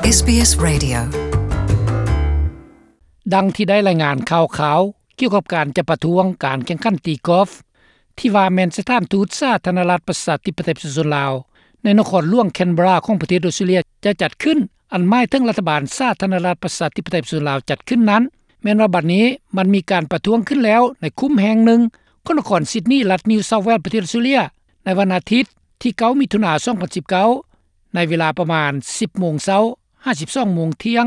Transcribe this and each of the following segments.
ເອສບີເອສ Radio. ດັ່ງທີ່ໄດ້ລາຍງານຂ່າວຄາວກ່ຽວກັບການຈະປະທ້ວງການແຂ່ງຂັນຕີກອຟ ທີ່ວ່າແມ່ນສະຖານທູດສາທາລະນະລັດປະຊາທິປະໄຕປະຊາຊົນລາວ ໃນນະຄອນຫຼວງແຄນເບຣາຂອງປະເທດອອສເຕຣເລັຍຈະຈັດຂຶ້ນ, ອັນໝາຍເຖິງລັດຖະບານສາທາລະນະລັດປະຊາທິປະໄຕປະຊາຊົນລາວຈັດຂຶ້ນນັ້ນ, ແມ່ນວ່າບັດນີ້ມັນມີການປະທ້ວງຂຶ້ນແລ້ວໃນຄຸ້ມແຫ່ງໜຶ່ງຂອງນະຄອນຊິດນີ ລັດນິວເຊົາແວລ ປະເທດອອສເຕຣເລັຍ ໃນວັນອາທິດທີເກົ້າ ມິຖຸນາ ສອງພັນສິບເກົ້າ ໃນເວລາປະມານສິບໂມງເຊົ້າ ຫາ ສິບສອງໂມງທ່ຽງ.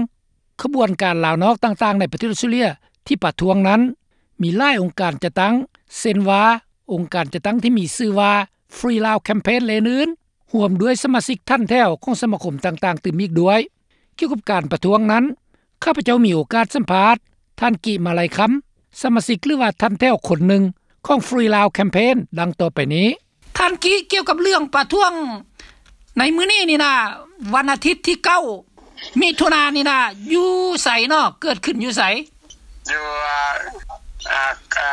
ຂະບວນການລາວນອກຕ່າງໆໃນປະເທດອອສເຕຣເລັຍທີ່ປະທ້ວງນັ້ນ ມີຫຼາຍອົງການຈັດຕັ້ງ ເຊັ່ນວ່າ ອົງການຈັດຕັ້ງທີ່ມີຊື່ວ່າ Free Lao Campaign ແລະອື່ນໆ ຮ່ວມດ້ວຍສະມາຊິກຖັນແຖວຂອງສະມາຄົມຕ່າງໆຕື່ມອີກດ້ວຍ. ກ່ຽວກັບການປະທ້ວງນັ້ນ, ຂ້າພະເຈົ້າມີໂອກາດສຳພາດທ່ານ ກິ ມາໄລຄຳ, ສະມາຊິກ ຫຼືວ່າຖັນແຖວຄົນໜຶ່ງຂອງ Free Lao Campaign ດັ່ງຕໍ່ໄປນີ້. ທ່ານ ກິ, ກ່ຽວກັບເລື່ອງປະທ້ວງໃນມື້ນີ້ນີ້ນະ, ວັນອາທິດທີເກົ້າ ມິຖຸນານີ້ນະ ຢູ່ໃສເນາະ? ເກີດຂຶ້ນຢູ່ໃສ? ຢູ່ ອ່າ ອ່າ ອ່າ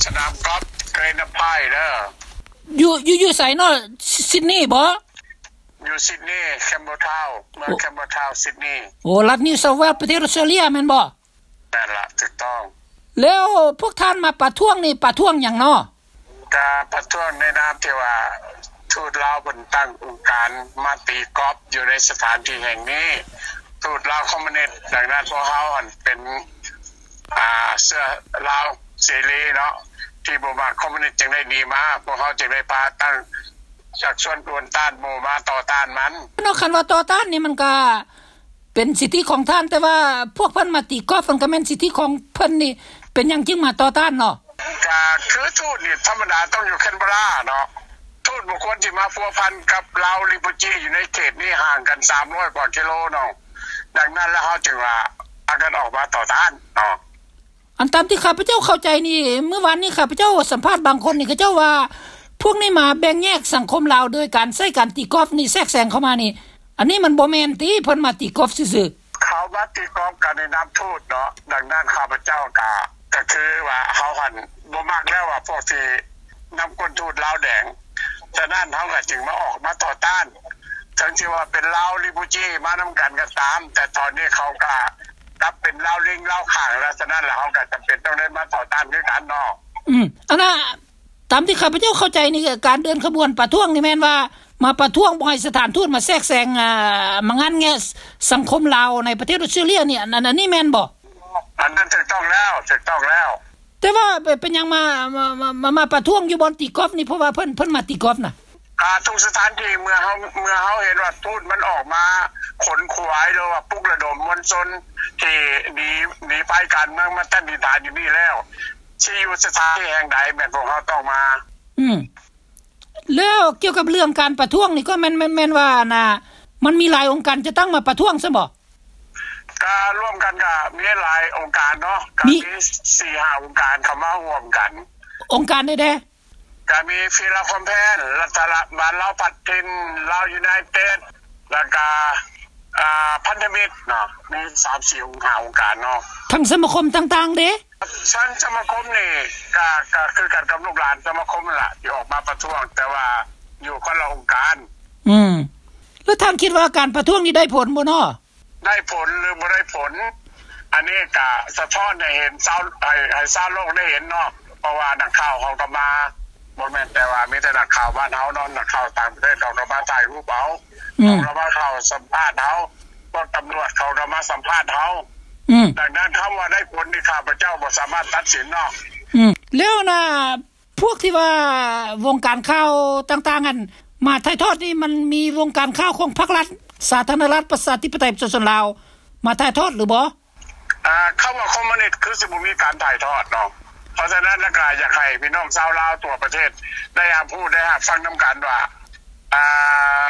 ສະໜາມກອບ Glen Iron Park ເດີ. ຢູ່ ຢູ່ ຢູ່ໃສເນາະ? ຊິດນີບໍ? ຢູ່ຊິດນີ Campbelltown ເມືອງ ໂອ້ Campbelltown ຊິດນີ. ໂອ້ ລັດ New South Wales ປະເທດອອສເຕຣເລັຍແມ່ນບໍ່? ແມ່ນລະ ຖືກຕ້ອງ. ແລ້ວພວກທ່ານມາປະທ້ວງນີ້ ປະທ້ວງຫຍັງເນາະ? ກະປະທ້ວງໃນນາມທີ່ວ່າທູດລາວເພິ່ນຕັ້ງອົງການມາຕີກອບຢູ່ໃນສະຖານທີ່ແຫ່ງນີ້. ທູດລາວຄອມມູນິດ, ດັ່ງນັ້ນພວກເຮົາຫັ້ນເປັນ ອ່າ ເຊື້ອລາວເສລີເນາະ ທີ່ບໍ່ມັກຄອມມູນິດຈຶ່ງໄດ້ໜີມາ, ພວກເຮົາຈຶ່ງໄດ້ປະຕັ້ງ ຊັກຊວນກວນຕ້ານໝູ່ມາຕໍ່ຕ້ານມັນ. ເນາະ ຄັນວ່າຕໍ່ຕ້ານນີ້ມັນກະເປັນສິດທິຂອງທ່ານ, ແຕ່ວ່າພວກເພິ່ນມາຕີກອບ ມັນກະແມ່ນສິດທິຂອງເພິ່ນນີ້ ເປັນຫຍັງຈຶ່ງມາຕໍ່ຕ້ານເນາະ? ກະຄືທູດນີ້ທຳມະດາຕ້ອງຢູ່ແຄນເບຣາເນາະ, ທູດບໍ່ຄວນຊິມາພົວພັນກັບລາວຣີຟູຈີຢູ່ໃນເຂດນີ້ ຫ່າງກັນສາມຮ້ອຍກວ່າກິໂລເນາະ. ດັ່ງນັ້ນແລ້ວເຮົາຈຶ່ງວ່າພາກັນອອກມາຕໍ່ຕ້ານເນາະ. ອັນຕາມທີ່ຂ້າພະເຈົ້າເຂົ້າໃຈນີ້ ມື້ວານນີ້ຂ້າພະເຈົ້າສຳພາດບາງຄົນນີ້ ເຂົາເຈົ້າວ່າພວກນີ້ມາແບ່ງແຍກສັງຄົມລາວໂດຍການໃຊ້ການຕີກອບນີ້ແຊກແຊງເຂົ້າມານີ້, ອັນນີ້ມັນບໍ່ແມ່ນຕິ ເພິ່ນມາຕີກອບຊື່ໆ? ເຂົາມາຕີກອບກັນໃນນາມທູດເນາະ, ດັ່ງນັ້ນຂ້າພະເຈົ້າກະ ກະຄືວ່າເຮົາຫັ້ນບໍ່ມັກແລ້ວວ່າພວກທີ່ນຳກົ້ນທູດລາວແດງ, ສະນັ້ນເຮົາກະຈຶ່ງມາອອກມາຕໍ່ຕ້ານ, ເຖິງຊິວ່າເປັນລາວຣີຟູຈີມານຳກັນກໍຕາມ, ແຕ່ຕອນນີ້ເຂົາກະ ກັບເປັນລາວລິງລາວຂ້າງແລ້ວ, ສະນັ້ນລະເຮົາກໍຈຳເປັນຕ້ອງໄດ້ມາຕໍ່ຕ້ານຄືກັນເນາະ. ອືມ ອັນນ່າ ຕາມທີ່ຂ້າພະເຈົ້າເຂົ້າໃຈນີ້ ການເດີນຂະບວນປະທ້ວງນີ້ແມ່ນວ່າມາປະທ້ວງບໍ່ໃຫ້ສະຖານທູດມາແຊກແຊງ ອ່າ ມາງັດແງະສັງຄົມລາວໃນປະເທດອອສເຕຣເລັຍນີ້ ອັນ ອັນ ອັນນີ້ແມ່ນບໍ່? ອັນນັ້ນຖືກຕ້ອງແລ້ວ ຖືກຕ້ອງແລ້ວ. ແຕ່ວ່າເປັນຫຍັງມາ ມາ ມາ ມາປະທ້ວງຢູ່ບ່ອນຕີກອບນີ້? ເພາະວ່າເພິ່ນ ເພິ່ນມາຕີກອບນະ. ອ່າ ທຸກສະຖານທີ່ ເມື່ອເຮົາ ເມື່ອເຮົາເຫັນວ່າທູດມັນອອກມາຂົນຂວາຍ ຫຼືວ່າປຸກລະດົມມວນຊົນທີ່ໜີ ໜີໄພການເມືອງມາຕັ້ງຖິ່ນຖານຢູ່ນີ້ແລ້ວ ຊິຢູ່ສະຖານທີ່ແຫ່ງໃດ ແມ່ນພວກເຮົາຕ້ອງມາ. ອືມ ແລ້ວກ່ຽວກັບເລື່ອງການປະທ້ວງນີ້ ກໍແມ່ນ ແມ່ນ ແມ່ນວ່າ ອັນນ່າ ມັນມີຫຼາຍອົງການຈັດຕັ້ງມາປະທ້ວງຊັ້ນບໍ? ກະລວມກັນກະມີຫຼາຍອົງການເນາະ, ກະມີ ມີສີ່ຫ້າອົງການເຂົ້າມາຮ່ວມກັນ. ອົງການໃດແດ່? ກະມີ Free Lao Campaign, ລັດຖະບານລາວພັດຖິ່ນ, Lao United, ແລ້ວກະ ອ່າ ພັນທະມິດເນາະ, ມີສາມສີ່ອົງ ຫ້າອົງການເນາະ. ທັງສະມາຄົມຕ່າງໆເດ? ທັງສະມາຄົມນີ້ກະ ກະຄືກັນກັບລູກຫຼານສະມາຄົມນັ້ນລະ ທີ່ອອກມາປະທ້ວງ, ແຕ່ວ່າຢູ່ຄົນລະອົງການ. ອືມ ແລ້ວທ່ານຄິດວ່າການປະທ້ວງນີ້ໄດ້ຜົນບໍ່ເນາະ? ໄດ້ຜົນຫຼືບໍ່ໄດ້ຜົນ ອັນນີ້ກະສະທ້ອນໃຫ້ເຫັນຊາວ ໃຫ້ ໃຫ້ຊາວໂລກໄດ້ເຫັນເນາະ, ເພາະວ່ານັກຂ່າວເຮົາກໍມາ ບໍ່ແມ່ນແຕ່ວ່າມີແຕ່ນັກຂ່າວບ້ານເຮົາເນາະ, ນັກຂ່າວຕ່າງປະເທດເຂົາກໍມາຖ່າຍຮູບເອົາ, ອືມ ເຂົາກໍມາເຂົ້າສຳພາດເຮົາ, ພວກຕຳຫຼວດເຂົາກໍມາສຳພາດເຮົາ. ອືມ ດັ່ງນັ້ນ ຄຳວ່າໄດ້ຜົນນີ້ ຂ້າພະເຈົ້າບໍ່ສາມາດຕັດສິນເນາະ. ອືມ ແລ້ວນະ ພວກທີ່ວ່າວົງການຂ່າວຕ່າງໆຫັ້ນ ມາຖ່າຍທອດນີ້ ມັນມີວົງການຂ່າວຂອງພັກລັດ ສາທາລະນະລັດ ປະຊາທິປະໄຕ ປະຊາຊົນລາວ ມາຖ່າຍທອດຫຼືບໍ່? ອ່າ ຄຳວ່າຄອມມູນິດຄືຊິບໍ່ມີການຖ່າຍທອດເນາະ, ເພາະສະນັ້ນລະກະຢາກໃຫ້ພີ່ນ້ອງຊາວລາວທົ່ວປະເທດໄດ້ຮັບຮູ້ ໄດ້ຮັບຟັງນຳກັນວ່າ ອ່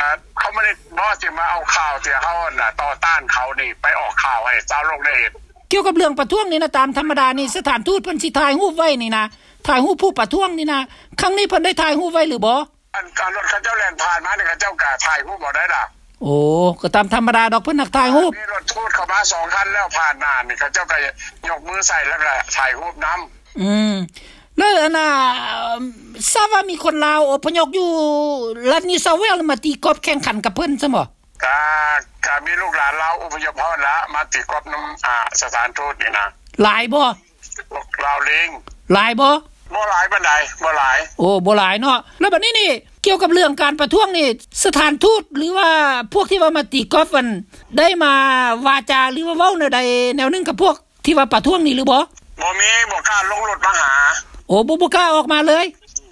າ ຄອມມູນິດບໍ່ຊິມາເອົາຂ່າວທີ່ເຮົານັ້ນນະ ຕໍ່ຕ້ານເຂົານີ້ ໄປອອກຂ່າວໃຫ້ຊາວໂລກໄດ້ເຫັນ. ກ່ຽວກັບເລື່ອງປະທ້ວງນີ້ນະ ຕາມທຳມະດານີ້ ສະຖານທູດເພິ່ນຊິຖ່າຍຮູບໄວ້ນີ້ນະ, ຖ່າຍຮູບຜູ້ປະທ້ວງນີ້ນະ, ຄັ້ງນີ້ເພິ່ນໄດ້ຖ່າຍຮູບໄວ້ຫຼືບໍ່? ອັນ ອັນລົດເຂົາເຈົ້າແລ່ນຜ່ານມານີ້ ເຂົາເຈົ້າກະຖ່າຍຮູບເອົາໄດ້ລະ. ໂອ້ ກໍຕາມທຳມະດາດອກ ເພິ່ນມັກຖ່າຍຮູບ. ມີລົດທູດເຂົ້າມາສອງຄັນແລ້ວ ຜ່ານໜ້ານີ້ ເຂົາເຈົ້າກະຍົກມືໃສ່ ແລ້ວກະຖ່າຍຮູບນຳ. ອືມ ແລ້ວອັນນ່າ ຊາບວ່າມີຄົນລາວອົບພະຍົບຢູ່ລັດນິວເຊົາເວລ ມາຕີກອບແຂ່ງຂັນກັບເພິ່ນຊັ້ນບໍ່? ກະ ກະມີລູກຫຼານລາວອົບພະຍົບເຮົາຫັ້ນລະ ມາຕີກອບນຳ ອາ ສະຖານທູດນີ້ນະ. ຫຼາຍບໍ່? ພວກລາວເລງ. ຫຼາຍບໍ່? ບໍ່ຫຼາຍປານໃດ, ບໍ່ຫຼາຍ. ໂອ້ ບໍ່ຫຼາຍເນາະ. ແລ້ວບັດນີ້ນີ້ ກ່ຽວກັບເລື່ອງການປະທ້ວງນີ້ ສະຖານທູດ ຫຼືວ່າພວກທີ່ວ່າມາຕີກອບຫັ້ນ ໄດ້ມາວາຈາ ຫຼືວ່າເວົ້າແນວໃດແນວໜຶ່ງກັບພວກ ທີ່ວ່າປະທ້ວງນີ້ຫຼືບໍ່? ບໍ່ມີ, ບໍ່ກ້າລົງລົດມາຫາ. ໂອ້ ບໍ່, ບໍ່ກ້າອອກມາເລີຍ?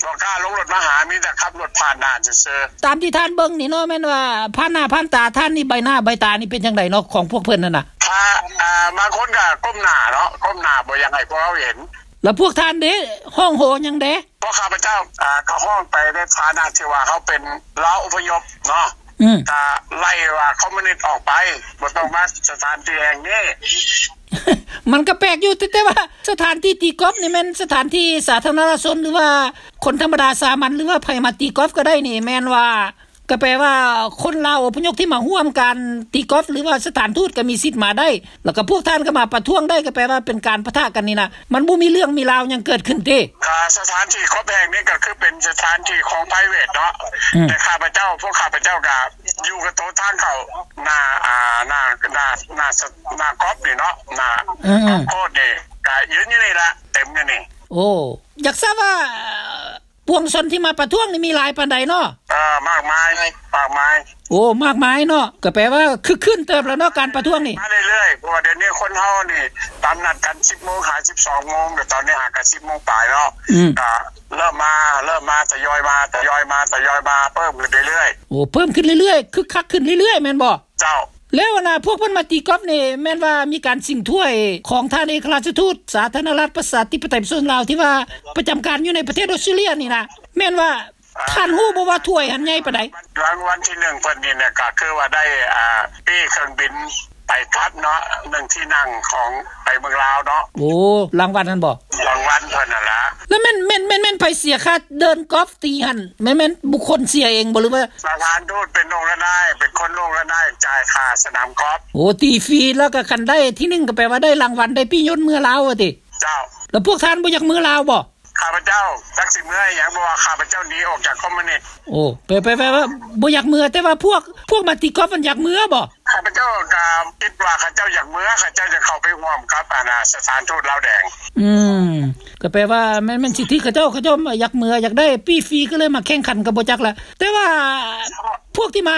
ບໍ່ກ້າລົງລົດມາຫາ, ມີແຕ່ຂັບລົດຜ່ານໜ້າຊື່ໆ. ຕາມທີ່ທ່ານເບິ່ງນີ້ເນາະ, ແມ່ນວ່າຜ່ານໜ້າຜ່ານຕາທ່ານນີ້, ໃບໜ້າໃບຕານີ້ເປັນຈັ່ງໃດເນາະ ຂອງພວກເພິ່ນຫັ້ນນະ? ຖ້າ, ອ່າ, ບາງຄົນກໍກົ້ມໜ້າເນາະ, ກົ້ມໜ້າບໍ່ຢາກໃຫ້ພວກເຮົາເຫັນ. ແລ້ວພວກທ່ານເດ້, ຮ້ອງໂຫຫຍັງເດ້? ພວກຂ້າພະເຈົ້າ, ອ່າ, ກໍຮ້ອງໄປໃນຖານະທີ່ວ່າເຮົາເປັນລາວອົບພະຍົບເນາະ, ອືມ, ກໍໄລ່ວ່າຄອມມູນິດອອກໄປ, ບໍ່ຕ້ອງມາສະຖານທີ່ແຫ່ງນີ້. ມັນກໍແປກຢູ່, ແຕ່, ແຕ່ວ່າສະຖານທີ່ຕີກອບນີ້ແມ່ນສະຖານທີ່ສາທາລະນະຊົນ ຫຼືວ່າຄົນທຳມະດາສາມັນ ຫຼືວ່າໃຜມາຕີກອບກໍໄດ້ນີ້, ແມ່ນວ່າ ກໍແປວ່າຄົນລາວອົບພະຍົບທີ່ມາຮ່ວມການຕີກອບ ຫຼືວ່າສະຖານທູດກໍມີສິດມາໄດ້, ແລ້ວກໍພວກທ່ານກໍມາປະທ້ວງໄດ້, ກໍແປວ່າເປັນການປະທະກັນນີ້ນະ, ມັນບໍ່ມີເລື່ອງມີລາວຫຍັງເກີດຂຶ້ນເດ້. ກໍສະຖານທີ່ກອບແຫ່ງນີ້ກໍຄືເປັນສະຖານທີ່ຂອງໄພຣເວດເນາະ, ອືມ, ແຕ່ຂ້າພະເຈົ້າ, ພວກຂ້າພະເຈົ້າກໍຢູ່ກັບໂຕທາງເຂົ້າໜ້າ, ອ່າ, ໜ້າ, ໜ້າ, ໜ້າ, ໜ້າກອບນີ້ເນາະ, ໜ້າ, ອືມ, ອືມ, ໂຄດນີ້ກໍຢືນຢູ່ນີ້ລະ, ເຕັມຢູ່ນີ້. ໂອ້, ຢາກຊາບວ່າ ປວງຊົນທີ່ມາປະທ້ວງນີ້ມີຫຼາຍປານໃດເນາະ? ເອີ, ມາກມາຍ, ມາກມາຍ. ໂອ້, ມາກມາຍເນາະ, ກໍແປວ່າຄຶກຄື້ນເຕີບແລ້ວເນາະ ການປະທ້ວງນີ້. ມາເລື້ອຍໆ, ເພາະວ່າດຽວນີ້ຄົນເຮົານີ້ຕາມນັດກັນສິບໂມງຫາສິບສອງໂມງ, ແຕ່ຕອນນີ້ຫາກໍສິບໂມງປາຍເນາະ. ອືມ, ກໍເລີ່ມມາ, ເລີ່ມມາ, ທະຍອຍມາ, ທະຍອຍມາ, ທະຍອຍມາ, ເພີ່ມຂຶ້ນເລື້ອຍໆ. ໂອ້, ເພີ່ມຂຶ້ນເລື້ອຍໆ, ຄຶກຄັກຂຶ້ນເລື້ອຍໆ, ແມ່ນບໍ່? ເຈົ້າ. ແລ້ວອັນນ່າ ພວກເພິ່ນມາຕີກອບນີ້ ແມ່ນວ່າມີການຊິງຖ້ວຍຂອງທ່ານເອກະລາຊະທູດສາທາລະນະລັດປະຊາທິປະໄຕປະຊາຊົນລາວ ທີ່ວ່າປະຈຳການຢູ່ໃນປະເທດອອສເຕຣເລຍນີ້ນະ, ແມ່ນວ່າ ອ່າ ທ່ານຮູ້ບໍ່ວ່າຖ້ວຍຫັ້ນໃຫຍ່ປານໃດ? ລາງວັນທີໜຶ່ງເພິ່ນນີ້ນະ ກໍຄືວ່າໄດ້ ອ່າ ປີ້ເຄື່ອງບິນໄປກັບເນາະ ໜຶ່ງທີ່ນັ່ງຂອງໄປເມືອງລາວເນາະ. ໂອ້ ລາງວັນຫັ້ນບໍ? ລາງວັນເພິ່ນຫັ້ນລະ. ແລ້ວແມ່ນ, ແມ່ນ, ແມ່ນ, ແມ່ນໃຜເສຍຄ່າເດີນກອບຕີຫັ້ນ? ແມ່ນ, ແມ່ນບຸກຄົນເສຍເອງບໍ ຫຼືວ່າ ສະຖານທູດເປັນລົງລະນາຍ, ເປັນຄົນລົງລະນາຍຈ່າຍຄ່າສະໜາມກອບ. ໂອ້ ຕີຟຣີ ແລ້ວກໍຄັນໄດ້ທີໜຶ່ງ ກໍແປວ່າໄດ້ລາງວັນ, ໄດ້ປີ້ຍົນເມືອລາວວ່າຕິ? ເຈົ້າ. ແລ້ວພວກທ່ານບໍ່ຢາກເມືອລາວບໍ? ຂ້າພະເຈົ້າຈັກຊິເມືອອີ່ຫຍັງ, ເພາະວ່າຂ້າພະເຈົ້າໜີອອກຈາກຄອມມູນິດ. ໂອ້ ແປ, ແປ, ແປວ່າບໍ່ຢາກເມືອ, ແຕ່ວ່າພວກ, ພວກມາຕີກອບມັນຢາກເມືອບໍ? ຂ້າພະເຈົ້າກໍຄິດວ່າເຂົາເຈົ້າຢາກເມືອ, ເຂົາເຈົ້າຈະເຂົ້າໄປຮ່ວມກັບ ອັນນ່າ ສະຖານທູດລາວແດງ. ອືມ, ກໍແປວ່າແມ່ນ, ແມ່ນສິດທິເຂົາເຈົ້າ, ເຂົາເຈົ້າຢາກເມືອ, ຢາກໄດ້ປີ້ຟຣີ ກໍເລີຍມາແຂ່ງຂັນກໍບໍ່ຈັກລະ. ແຕ່ວ່າພວກທີ່ມາ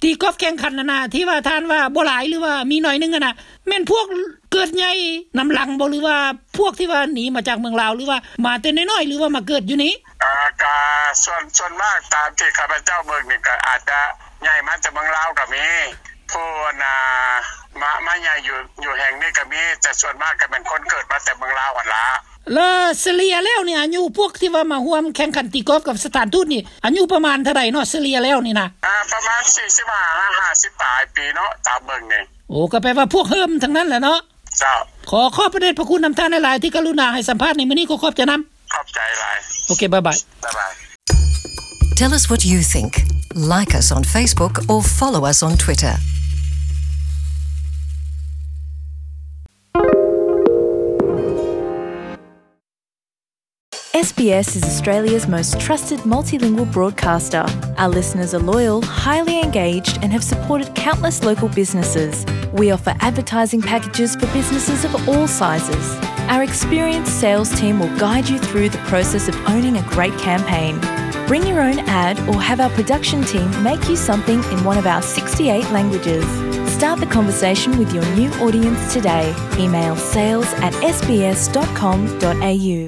ຕີກອບແຂ່ງຂັນຫັ້ນນະ ທີ່ວ່າທ່ານວ່າບໍ່ຫຼາຍ ຫຼືວ່າມີໜ້ອຍໜຶ່ງຫັ້ນນະ ແມ່ນພວກເກີດໃຫຍ່ນຳຫຼັງບໍ ຫຼືວ່າພວກທີ່ວ່າໜີມາຈາກເມືອງລາວ ຫຼືວ່າມາແຕ່ນ້ອຍໆ ຫຼືວ່າມາເກີດຢູ່ນີ້? ອ່າ ກະສ່ວນ, ສ່ວນມາກຕາມທີ່ຂ້າພະເຈົ້າເບິ່ງນີ້ ກະອາດຈະໃຫຍ່ມາແຕ່ເມືອງລາວກະມີ, ຜູ້ອັນນ່າ ມາ, ມາໃຫຍ່ຢູ່, ຢູ່ແຫ່ງນີ້ກະມີ, ແຕ່ສ່ວນມາກກະແມ່ນຄົນເກີດມາແຕ່ເມືອງລາວຫັ້ນລະ. ແລ້ວສະເລ່ຍແລ້ວນີ້ ອາຍຸພວກທີ່ວ່າມາຮ່ວມແຂ່ງຂັນຕີກອບກັບສະຖານທູດນີ້ ອາຍຸປະມານເທົ່າໃດເນາະ ສະເລ່ຍແລ້ວນີ້ນະ? ອ່າ ປະມານສີ່ສິບຫ້າ ຫ້າສິບປາຍປີເນາະ ຕາມເບິ່ງນີ້. ໂອ້ ກໍແປວ່າພວກເຮີ້ມທັງນັ້ນແຫຼະເນາະ. ເຈົ້າ. ຂໍຂອບພະເດດພະຄຸນນຳທ່ານຫຼາຍໆ ທີ່ກະລຸນາໃຫ້ສຳພາດໃນມື້ນີ້, ຂໍຂອບໃຈນຳ. ຂອບໃຈຫຼາຍ. ໂອເຄ, ບາຍບາຍ. ໂອເຄ, ບາຍບາຍ. Tell us what you think. Like us on Facebook or follow us on Twitter. S B S is Australia's most trusted multilingual broadcaster. Our listeners are loyal, highly engaged, and have supported countless local businesses. We offer advertising packages for businesses of all sizes. Our experienced sales team will guide you through the process of owning a great campaign. Bring your own ad or have our production team make you something in one of our sixty-eight languages. Start the conversation with your new audience today. Email sales at S B S dot com dot A U.